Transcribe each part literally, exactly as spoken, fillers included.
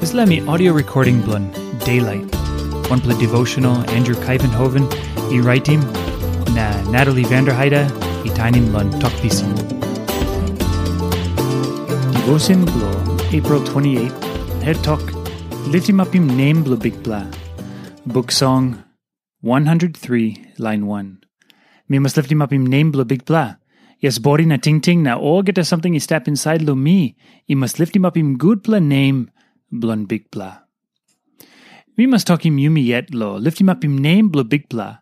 Dispela mi audio recording bilong Daylight, wanpela devotional Andrew Kaivenhoven i raitim, na Natalie Vanderheide i tainim long Tok Pisin. Devotion bilong April twenty-eight, het tok, Liftim apim nem bilong Bikpela. Buk Song one hundred three, lain one. Mi mas liftim apim nem bilong Bikpela. Yes, bodi na tingting na olgeta samting i stap insait long mi, i mas liftim apim gutpela nem bilong Bikpela. Mi mas tokim yumi yet lo liftim apim nem bilong Bikpela,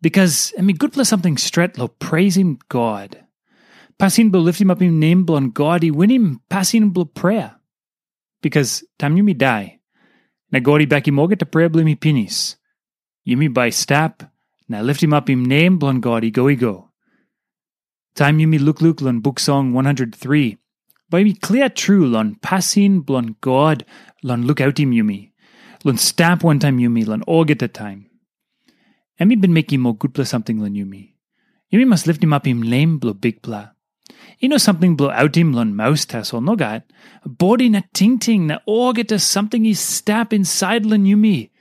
bikas em i gutpela samting stret lo preisim God. Pasin bilong liftim apim nem bilong God i winim pasin bilong prea. Bikas taim yumi dai, na God i bekim olgeta prea bilong yumi pinis, yumi bai stap na liftim apim nem bilong God i go i go. Taim yumi lukluk long Buk Song one hundred three, bai yumi klia tru long pasin bilong God long lukautim yumi, long stap wantaim yumi long olgeta taim. Em i bin mekim ol gutpela samting long yumi. Yumi mas liftim apim nem bilong Bikpela. I no samting bilong autim long maus tasol, nogat. Bodi na tingting na olgeta samting i stap insait long yumi,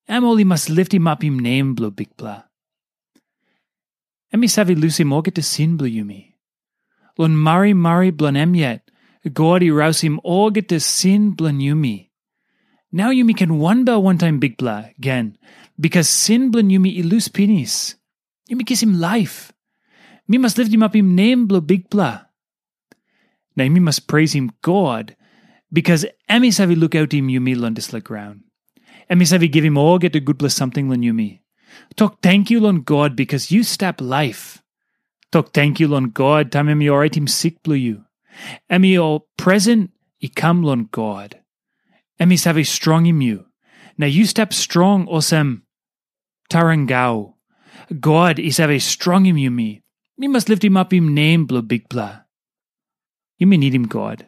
em ol i mas liftim apim nem bilong Bikpela. Em i save lusim olgeta sin bilong yumi. Long marimari bilong em yet, God i rausim olgeta sin bilong yumi. Nau yumi ken wanbel wantaim Bikpela gen, bikas sin bilong yumi i lus pinis. Yumi kisim laip. Mi mas liftim apim nem bilong Bikpela. Na yumi mas preisim God, bikas em i save lukautim yumi long dispela graun. Em i save givim olgeta gutpela samting long yumi. Tok tenkyu long God bikas yu stap laip. Tok tenkyu long God taim em i oraitim sik bilong yu. Em i ol presen i kam long God. Em i save strongim yu. Na yu stap strong olsem tarangau. God i save strongim yumi. Mi mas liftim apim nem bilong Bikpela. Yumi nidim God.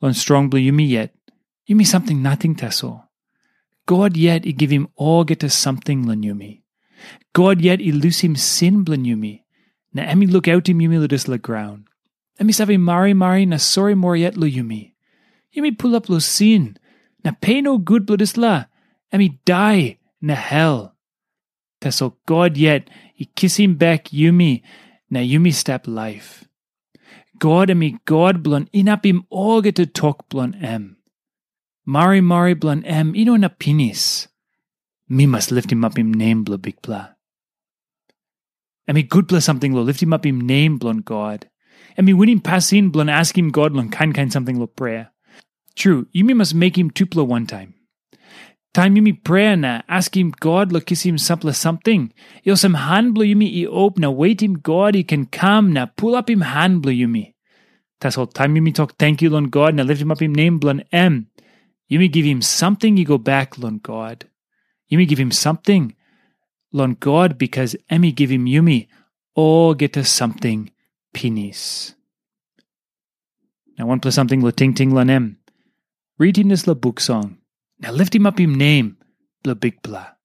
Long strong bilong yumi yet, yumi samting nating tasol. God yet i givim olgeta samting long yumi. God yet i lusim sin bilong yumi, na em i lukautim yumi long dispela graun. Em i save marimari na sori moa yet long yumi. Yumi pulap long sin, na pe nogut bilong dispela, em i dai na hel. Tasol God yet i kisim bek yumi, na yumi stap laip. God em i God bilong inapim olgeta tok bilong em. Marimari bilong em i no inap pinis. Mi mas liftim apim nem bilong Bikpela. Em i gutpela samting long liftim apim nem bilong God. Em i winim pasin bilong askim God long kain kain samting long prea. Tru, yumi mas mekim tupela wantaim. Taim yumi prea na askim God long kisim sampela samting, i olsem han bilong yumi i op na wetim God i ken kam na pulapim han bilong yumi. Tasol taim yumi tok tenkyu long God na liftim apim nem bilong em, yumi givim samting i go bek long God. Yumi givim samting long God bikas em i givim yumi olgeta samting pinis. Na wanpela samting long tingting long em. Ritim dispela buk song, na liftim apim nem bilong Bikpela.